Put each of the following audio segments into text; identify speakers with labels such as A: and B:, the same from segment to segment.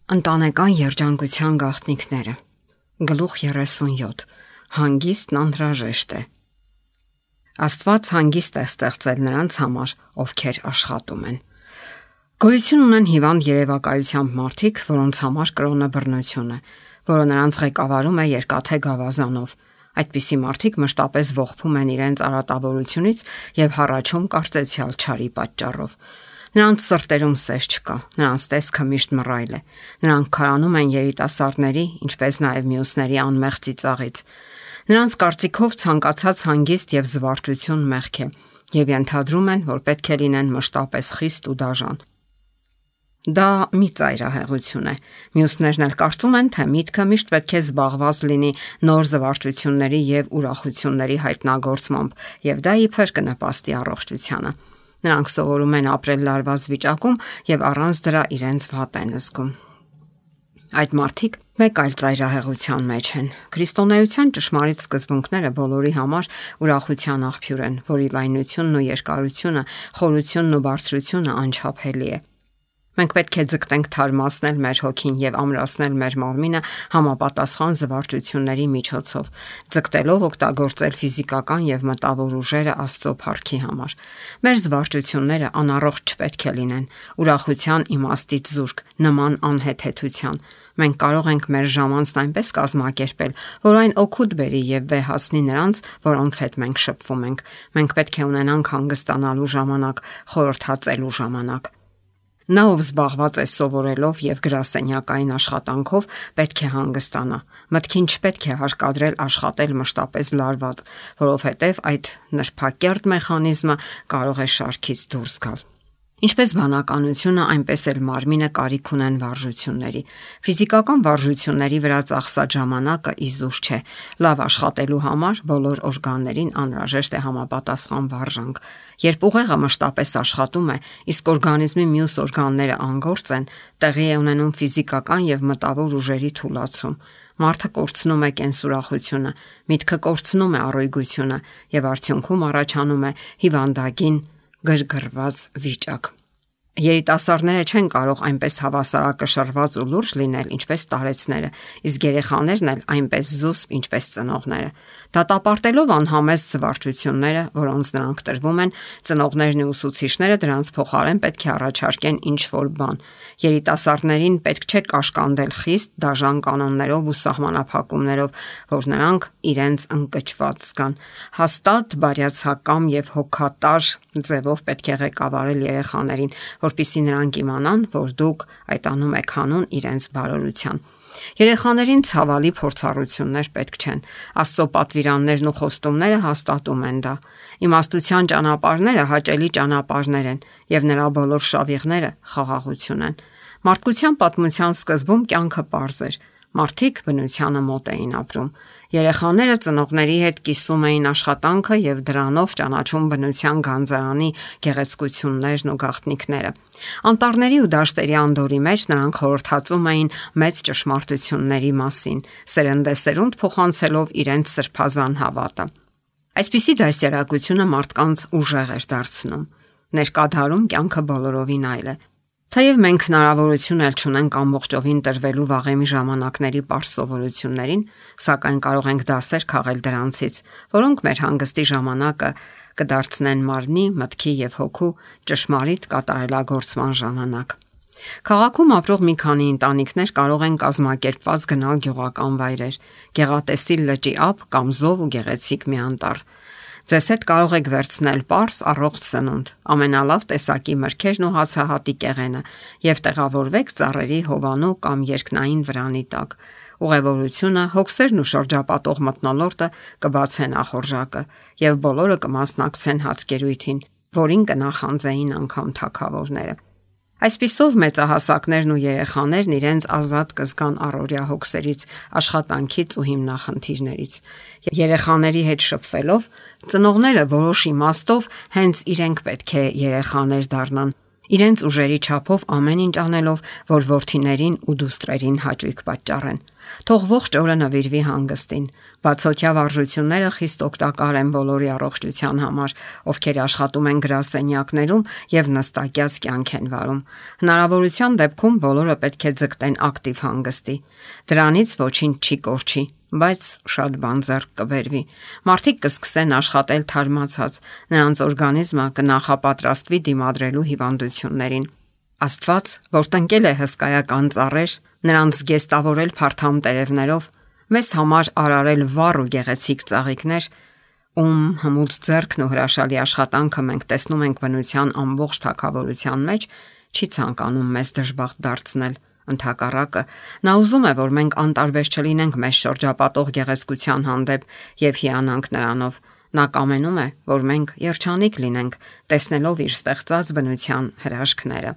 A: Ընտանեկան երջանկության գաղտնիքները։ Գլուխ 37. Հանգիստն անհրաժեշտ է։ Աստված հանգիստ է ստեղծել նրանց համար, ովքեր աշխատում են։ Գոյություն ունեն հիվանդ երևակայությամբ մարդիկ, որոնց համար կրոնը բռնություն է, որը նրանց ղեկավարում է երկաթե գավազանով։ Այդպիսի մարդիկ մշտապես ողբում են իրենց արատավորությունից եւ հառաչում կարծեցյալ չարի պատճառով։ Նրանց սրտերում սեր չկա, նրանց տեսքը միշտ մռայլ է։ Նրանք քարանում են երիտասարդների, ինչպես նաև մյուսների անմեղ ծիծաղից։ Նրանց կարծիքով ցանկացած հանգիստ եւ զվարճություն մեղք է, եւ ենթադրում են, որ պետք է լինեն մշտապես խիստ ու դաժան։ Դա մի ծայրահեղություն է։ Մյուսներն էլ կարծում են, թե միտքը միշտ պետք է զբաղված լինի նոր զվարճությունների եւ ուրախությունների հայտնագործմամբ, եւ դա իբր կնպաստի առողջությանը։ Նրանք սովորում են ապրել լարված վիճակում եւ առանց դրա իրենց վատ են զգում։ Այդ մարդիկ մեկ այլ ծայրահեղության մեջ են։ Քրիստոնեության ճշմարիտ սկզբունքները բոլորի համար ուրախության աղբյուր են, որի լայնությունն ու երկարությունը, խորությունն ու բարձրությունը անչափելի է։ Մենք պետք է ձգտենք թարմացնել մեր հոգին եւ ամրացնել մեր մարմինը համապատասխան զվարճությունների միջոցով, ձգտելով օգտագործել ֆիզիկական եւ մտավոր ուժերը Աստծո փառքի համար։ Մեր զվարճությունները անառողջ չպետք է լինեն, ուրախության իմաստից զուրկ, նման անհեթեթության։ Մենք կարող ենք մեր ժամանցն այնպես կազմակերպել, որ այն օգուտ բերի եւ վեհացնի նրանց, որոնց հետ մենք շփվում ենք։ Մենք պետք է ունենանք հանգստանալու ժամանակ, խորհրդածելու ժամանակ։ Նա, ով զբաղված է սովորելով եւ գրասենյակային աշխատանքով, պետք է հանգստանա։ Մտքին չպետք է հարկադրել աշխատել մշտապես լարված, որովհետեւ այդ նրբակերտ մեխանիզմը կարող է շարքից դուրս գալ։ Ինչպես բանականությունը, այնպես էլ մարմինը կարիք ունեն վարժությունների։ Ֆիզիկական վարժությունների վրա ծախսած ժամանակը իզուր չէ։ Լավ աշխատելու համար բոլոր օրգաններին անհրաժեշտ է համապատասխան վարժանք։ Երբ ուղեղը մշտապես աշխատում է, իսկ օրգանիզմի մյուս օրգանները անգործ են, տեղի է ունենում ֆիզիկական եւ մտավոր ուժերի թուլացում։ Մարդը կորցնում է կենսուրախությունը, միտքը կորցնում է առողջությունը եւ արդյունքում առաջանում է հիվանդագին գրգռված վիճակ։ Երիտասարդները չեն կարող այնպես հավասարակշռված ու լուրջ լինել, ինչպես տարեցները, իսկ երեխաներն էլ այնպես զուսպ, ինչպես ծնողները։ Դատապարտելով անհամեստ զվարճությունները, որոնց նրանք տրվում են, ծնողներն ու ուսուցիչները դրանց փոխարեն պետք է առաջարկեն ինչ-որ բան։ Երիտասարդներին պետք չէ կաշկանդել խիստ, դաժան կանոններով ու սահմանափակումներով, որ նրանք իրենց ընկճված զգան։ Հաստատ, բարյացակամ եւ հոգատար ձևով պետք է ղեկավարել երեխաներին, որպեսզի նրանք իմանան, որ դուք այդ անում եք հանուն իրենց բարօրության։ Երեխաներին ցավալի փորձառություններ պետք չեն։ Աստծո պատվիրաններն ու խոստումները հաստատում են դա։ Իմաստության ճանապարհները հաճելի ճանապարհներ են, եւ նրա բոլոր շավիղները խաղաղություն են։ Մարդկության պատմության սկզբում կյանքը պարզ էր։ Մարդիկ բնությանը մոտ էին ապրում։ Երեխաները ծնողների հետ կիսում էին աշխատանքը եւ դրանով ճանաչում բնության գանձարանի գեղեցկություններն ու գաղտնիքները։ Անտառների ու դաշտերի անդորի մեջ նրանք խորհրդածում էին մեծ ճշմարտությունների մասին, սերնդեսերունդ փոխանցելով իրենց սրբազան հավատը։ Այսպիսի դաստիարակությունը մարդկանց ուժեղ էր դարձնում։ Ներկա դարում կյանքը բոլորովին այլ է։ Թեև մենք հնարավորություն էլ չունենք ամբողջովին տրվելու վաղեմի ժամանակների པարզ սովորություններին, սակայն կարող ենք դասեր քաղել դրանցից, որոնք մեր հանգստի ժամանակը կդարձնեն մարմնի, մտքի եւ հոգու ճշմարիտ կատարելագործման ժամանակ։ Քաղաքում ապրող մի քանի ընտանիքներ կարող են կազմակերպված գնալ գյուղական վայրեր, գեղատեսիլ լճի ափ կամ զով ու գեղեցիկ մի անտառ։ Ձեզ հետ կարող եք վերցնել պարզ առողջ սնունդ, ամենալավ տեսակի մրգերն ու հացահատի կեղենը եւ տեղավորվեք ծառերի հովանու կամ երկնային վրանի տակ։ Ուղևորությունը, հոգսերն ու շրջապատող մթնոլորտը կբացեն ախորժակը եւ բոլորը կմասնակցեն հացկերույթին, որին կնախանձեին անգամ թագավորները։ Այսպիսով մեծահասակներն ու երեխաներն իրենց ազատ կզգան առօրյա հոգսերից, աշխատանքից ու հիմնախնդիրներից։ Երեխաների հետ շփվելով, ծնողները որոշ իմաստով հենց իրենք պետք է երեխաներ դառնան Իրենց ուժերի չափով ամեն ինչ անելով, որ որդիներին ու դուստրերին հաճույք պատճառեն։ Թող ողջ օրը նվիրվի հանգստին։ Բացօթյա վարժությունները խիստ օգտակար են բոլորի առողջության համար, ովքեր աշխատում են գրասենյակներում եւ նստակյաց կյանք են վարում։ Հնարավորության դեպքում բոլորը պետք է ձգտեն ակտիվ հանգստի։ Դրանից ոչինչ չի կորչի, բայց շատ բան ձեռք կբերվի։ Մարդիկ կսկսեն աշխատել թարմացած, նրանց օրգանիզմը կնախապատրաստվի դիմադրելու հիվանդություններին։ Աստված, որ տնկել է հսկայական ծառեր, նրանց զգեստավորել փարթամ տերևներով, մեզ համար արարել վառ ու գեղեցիկ ծաղիկներ, ում հմուտ ձեռքն ու հրաշալի աշխատանքը մենք տեսնում ենք բնության ամբողջ թագավորության մեջ, չի ցանկանում մեզ դժբախտ դարձնել։ Ընդհակառակը, նա ուզում է, որ մենք անտարբեր չլինենք մեզ շրջապատող գեղեցկության հանդեպ եւ հիանանք նրանով։ Նա կամենում է, որ մենք երջանիկ լինենք, տեսնելով իր ստեղծած բնության հրաշքները։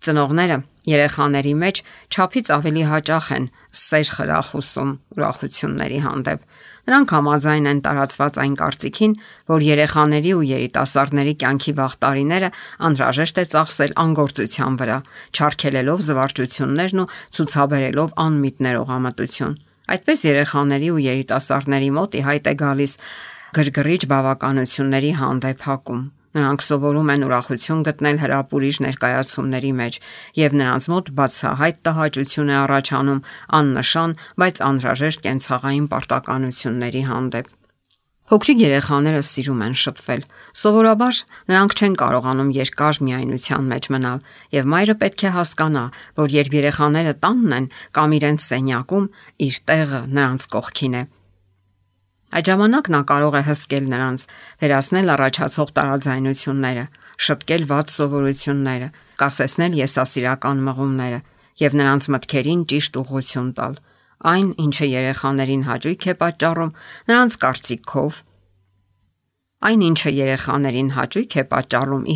A: Ծնողները երեխաների մեջ չափից ավելի հաճախ են սեր խրախուսում ուրախությունների հանդեպ։ Նրանք համաձայն են տարածված այն կարծիքին, որ երեխաների ու երիտասարդների կյանքի վաղ տարիները անհրաժեշտ է ծախսել անգործության վրա, չարգելելով զվարճություններն ու ցուցաբերելով անմիտ ներողամտություն։ Այդպես երեխաների ու երիտասարդների մոտ ի հայտ է գալիս գրգռիչ բավականությունների հանդեպ հակում։ Նրանք սովորում են ուրախություն գտնել հրապուրիչ ներկայացումների մեջ, եւ նրանց մոտ բացահայտ տհաճություն է առաջանում աննշան, բայց անհրաժեշտ կենցաղային պարտականությունների հանդեպ։ Փոքրիկ երեխաները սիրում են շփվել։ Սովորաբար նրանք չեն կարողանում երկար միայնության մեջ մնալ, եւ մայրը պետք է հասկանա, որ երբ երեխաները տանն են կամ իրենց սենյակում, իր տեղը նրանց կողքին է։ Այդ ժամանակ նա կարող է հսկել նրանց, վերացնել առաջացող տարաձայնությունները, շտկել վատ սովորությունները, կասեցնել եսասիրական մղումները եւ նրանց մտքերին ճիշտ ուղղություն տալ։ Այն, ինչը երեխաներին հաճույք է պատճառում, նրանց կարծիքով,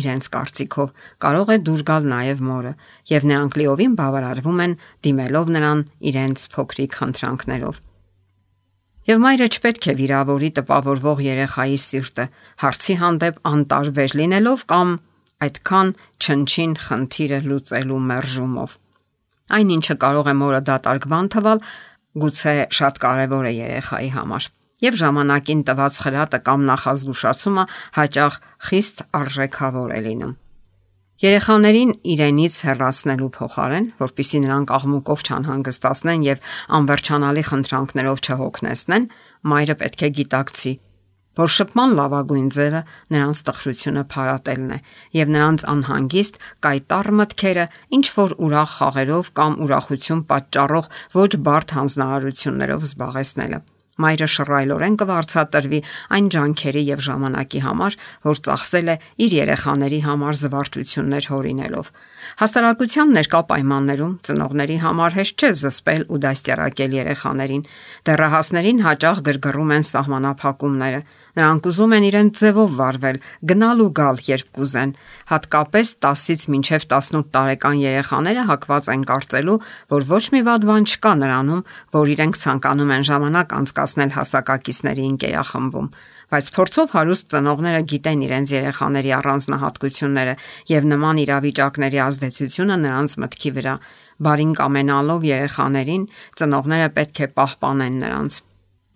A: իրենց կարծիքով, կարող է դուր գալ նաեւ մորը, եւ նրանք լիովին բավարարվում են դիմելով նրան իրենց փոքրիկ խնդրանքներով։ Եվ մայրը չպետք է վիրավորի տպավորվող երեխայի սիրտը, հարցի հանդեպ անտարբեր լինելով կամ այդքան չնչին խնդիրը լուծելու մերժումով։ Այն, ինչը կարող է մորը դատարկ բան թվալ, գուցե շատ կարևոր է երեխայի համար։ Եվ ժամանակին տված խրատը կամ նախազգուշացումը հաճախ խիստ արժեքավոր է լինում։ Երեխաներին իրենից հեռացնելու փոխարեն, որpիսի նրանք աղմուկով չանհանգստացնեն եւ անվերջանալի խնդրանքներով չհոգնեցնեն, մայրը պետք է գիտակցի, որ շփման լավագույն ձևը նրանց տխրությունը փարատելն է եւ նրանց անհանգիստ կայտառ մտքերը ինչ որ ուրախ խաղերով կամ ուրախություն պատճառող ոչ բարդ հանձնարարություններով զբաղեցնելը։ Մայրը շռայլորեն կվարձատրվի այն ջանքերի եւ ժամանակի համար, որ ծախսել է իր երեխաների համար զվարճություններ հորինելով։ Հասարակության ներկա պայմաններում ծնողների համար հեշտ չէ զսպել ու դաստիարակել երեխաներին։ Դեռահասներին հաճախ գրգռում են սահմանափակումները։ Նրանք ուզում են իրենց ձևով վարվել, գնալ ու գալ, երբ կուզեն։ Հատկապես 10-ից մինչև 18 տարեկան երեխաները հակված են կարծելու, որ ոչ մի վատ բան չկա նրանում, որ իրենք ցանկանում են ժամանակ անցկացնել հասակակիցների ընկերախմբում, բայց փորձով հարուստ ծնողները գիտեն իրենց երեխաների առանձնահատկությունները եւ նման իրավիճակների ազդեցությունը նրանց մտքի վրա։ Բարին կամենալով երեխաներին, ծնողները պետք է պահպանեն նրանց։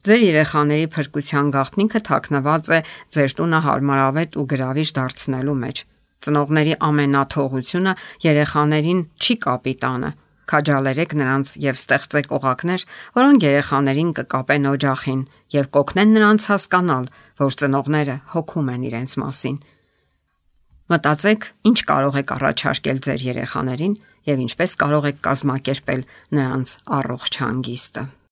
A: Ձեր երեխաների փրկության գաղտնիքը թաքնված է ձեր տունը հարմարավետ ու գրավիչ դարձնելու մեջ։ Ծնողների ամենաթողությունը երեխաներին չի կապիտանը։ Քաջալերեք նրանց եւ ստեղծեք օղակներ, որոնք երեխաներին կկապեն օջախին եւ կօգնեն նրանց հասկանալ, որ ծնողները հոգում են իրենց մասին։ Մտածեք, ինչ կարող եք առաջարկել ձեր երեխաներին եւ ինչպես կարող եք կազմակերպել նրանց առողջ հանգիստը։